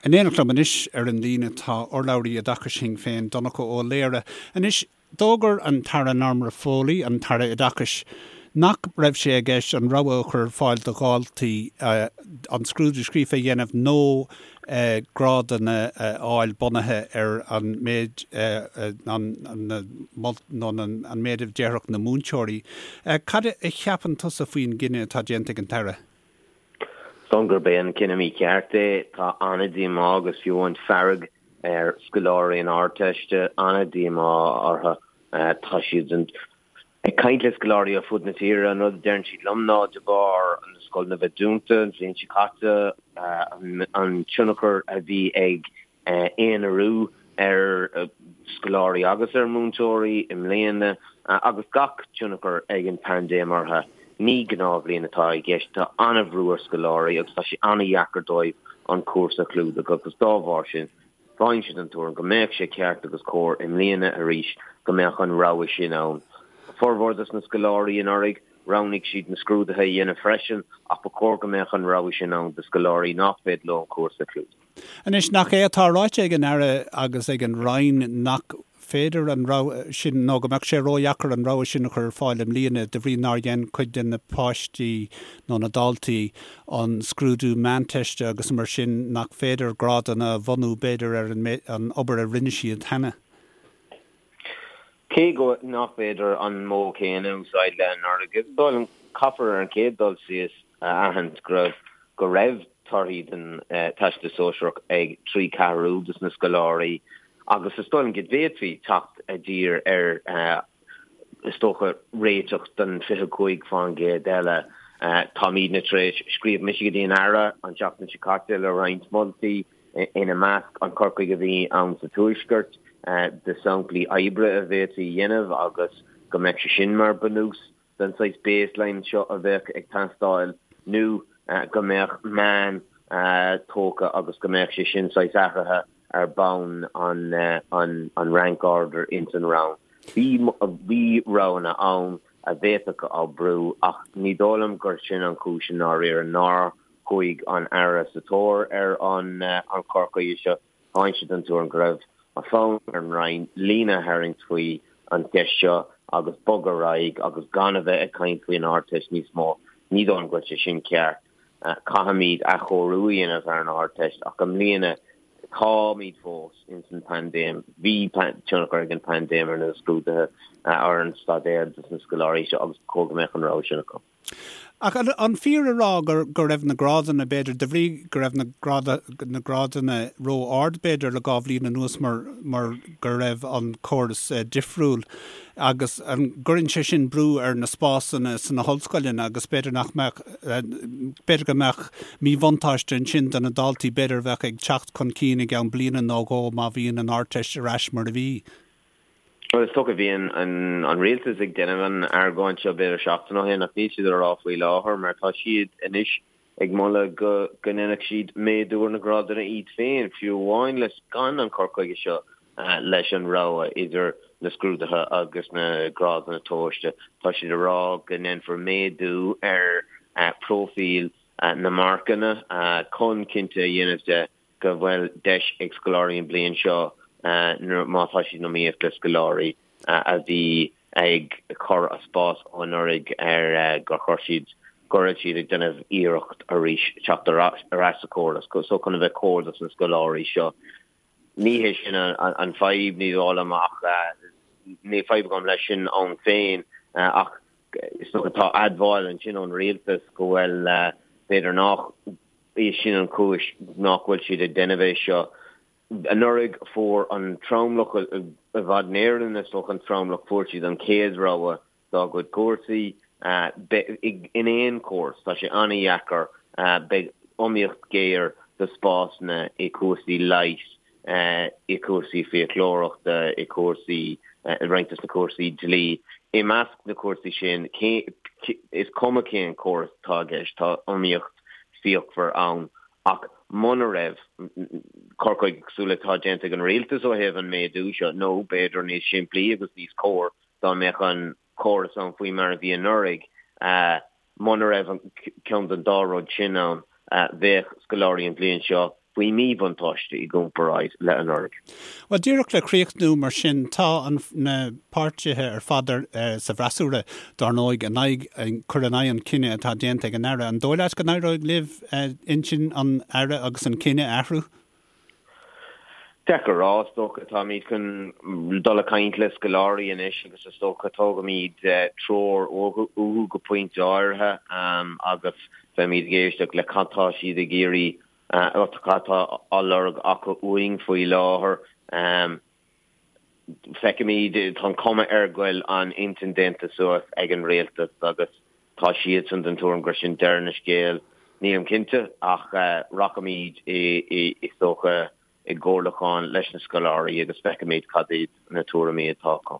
In éineacht liom anois ar an líne tá urlabhraí oideachais Shinn Féin, Donncha Ó Laoghaire. Anois, d'fhógair an tAire Norma Foley, an tAire Oideachais, nach raibh sé i gceist an rogha a chur ar fáil do dhaltaí an scrúdú scríofa a dhéanamh nó grádanna a fháil bunaithe ar an méid nó an méid a déarfadh na múinteoirí. Cad a cheapann tusa faoin gcinneadh atá déanta ag an tAire? Is dóigh liom gurb é an cinneadh mícheart é. Tá an-díomá agus fiú amháin fearg ar scoláirí na hArdteiste, an-díomá orthu. Tá siad ag caint le scoláirí ar fud na tíre, an rud a deireann siad liom ná de bharr na scoileanna bheith dúnta an bhliain seo caite, an tionchar a bhí ag aonarú ar scoláirí agus ar mhúinteoirí i mbliana agus gach tionchar ag an bpaindéim orthu. Ní gnáthbhliain atá i gceist. Tá an-bhrú ar scoláirí agus tá sé an-dheacair dóibh an cúrsa a chlúdach agus dá bharr sin táimse den tuairim go mbeadh sé ceart agus cóir i mbliana arís go mbeadh an rogha sin ann. Formhór dos na scoláirí anuraidh, roghnaigh siad na scrúduithe a dhéanamh freisin ach ba chóir go mbeadh an rogha sin ann do scoláirí nach féidir leo an cúrsa a chlúdach. Anois, nach é atá ráite ag an Aire agus ag an Roinn nach féidir an rogha sin, nó go mbeadh sé ródheacair an rogha sin a chur ar fáil i mbliana de bhrí nár dhein cuid de na páistí nó na daltaí an scrúdú meánteiste agus mar sin nach féidir grádanna a bhunú b'fhéidir ar an obair a rinne siad cheana? Cé go nach féidir an modh céanna a úsáid le anuraidh, is dóigh liom, caithfear ar an chéad dul síos a aithint go raibh go raibh torthaí den Teastas Sóisearach ag 3 ceathrú dos na scoláirí agus is dóigh liom go bhféadfaí teacht i dtír ar is dócha réiteach don 25% eile. Táimidne tar éis, scríobh mise go dtí an Aire an tseachtain seo caite le roinnt moltaí, ina measc an cur chuige a bhí ann sa Tuaisceart de samplaí oibre a bhféadfaí a dhéanamh agus go mbeadh sé sin mar bunús den saghas baseline seo a bheadh ag teastáil nó go mbeadh meán tógtha agus go mbeadh sé sin saghas athraithe ar bhonn an rank order ins an rang. Bhí bhí roghanna ann a bhféadfadh oibriú ach ní dóigh liom gur sin an chúis i ndáiríre nár chuaigh an Aire sa tóir ar an chur chuige seo. Táimse den tuairim go raibh an fonn ar an Roinn líne a tharraingt faoi an cheist seo agus bogadh ar aghaidh agus gan a bheith ag caint faoin Ardteist níos mó. Ní dóigh liom go bhfuil sé sin ceart. Caithfimid athchóiriú a dhéanamh ar an Ardteist ach i mbliana táimid fós ins an paindéim. Bhí tionchar ag an paindéim ar na scrúduithe, ar an staidéar dos na scoláirí seo agus ba chóir go mbeadh an rogha sin acu. Ach an fíor a rá go raibh na grádanna, b'fhéidir, de bhrí go raibh na na grádanna ró-ard, b'fhéidir, le 2 bhliain anuas mar mar go raibh an córas difriúil agus an gcuireann sé sin brú ar na spásanna sna hollscoileanna agus b'fhéidir nach mbeadh, b'fhéidir go mbeadh míbhuntáiste ansin do na daltaí b'fhéidir a bheadh ag teacht chun cinn i gceann bliana nó dhó má bhíonn an Ardteist ar ais mar a bhí. Bhuel, is dócha, bhí an rialtas ag déanamh an argóint seo b'fhéidir seachtain ó shin ach níl siad á rá faoi láthair mar tá siad anois ag moladh go ndéanfadh siad méadú ar na grádanna iad féin, fiú amháin leis gan an cur chuige seo leis an rogha idir na scrúduithe agus na grádanna tomhaiste. Tá siad ag rá go ndéanfar méadú ar próifíl na marcanna chun cinnte a dhéanamh de go bhfuil deis ag scoláirí an bhliain seo má tá siad in iomaíocht le scoláirí a bhí ag cur a spás ó anuraidh ar gur chuir siad, go raibh siad ag déanamh iarracht arís teacht ar ais sa chóras so chun a bheith cóir dos na scoláirí seo. Ní hé sin an fadhb, ní dóigh liom ach níl fadhb agam leis sin ann féin ach is dócha tá admháil ansin ón rialtas go bhfuil b'fhéidir nach é sin an chúis nach bhfuil siad ag déanamh é seo. Anuraidh fuair an tromlach, i bhfad in Éirinn is dócha an tromlach, fuair siad an chéad rogha dá gcuid cúrsaí. In aon chóras, tá sé an-dheacair, beidh iomaíocht ghéar do spásanna i cúrsaí leighis, i cúrsaí fiaclóireachta, i cúrsaí, i roinnt de na cúrsaí dlí. I measc na cúrsaí sin, is cuma cén córas atá i gceist, tá iomaíocht fíochmhar ann. Ach muna raibh cur chuige cosúil le atá déanta ag an rialtas ó thaobh an méadú seo, nó b'fhéidir níos simplí agus níos cóir dá mbeadh an córas ann faoi mar a bhí anuraidh, muna raibh ceann den dá rud sin ann, bheadh scoláirí an bhliain seo. Faoi mhíbhuntáiste i gcomparáid le anuraidh. Bhuel, díreach le críochnú mar sin, tá an, na páirtithe ar fad ar, sa bhfreasúra, dár ndóigh, in aghaidh, cur in aghaidh an chinnidh atá déanta ag an Aire. An dóigh leat go n-éireoidh libh intinn an Aire agus an cinneadh a athrú? Deacair a rá, is dócha. Táimid chun dul ag caint le scoláirí anois agus is dócha tógfaimid treoir uathu go pointe áirithe agus beimid ag éisteacht le cad tá siad ag iarraidh, cad tá á lorg acu uainn faoi láthair. Feicfimid, tá an cuma air go bhfuil an intinn déanta suas ag an rialtas agus tá siadsan den tuairim gur sin deireadh na scéal. Nílim cinnte ach rachaimid is dócha i gcomhairliúchán leis na scoláirí agus feicfimid cad iad na tuairimí atá acu.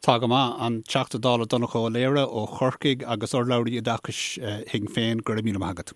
Tá go maith. An Teachta Dála Donnchadh Ó Laoghaire ó Chorcaigh agus urlabhraí oideachais Shinn Féin, go raibh míle maith agat.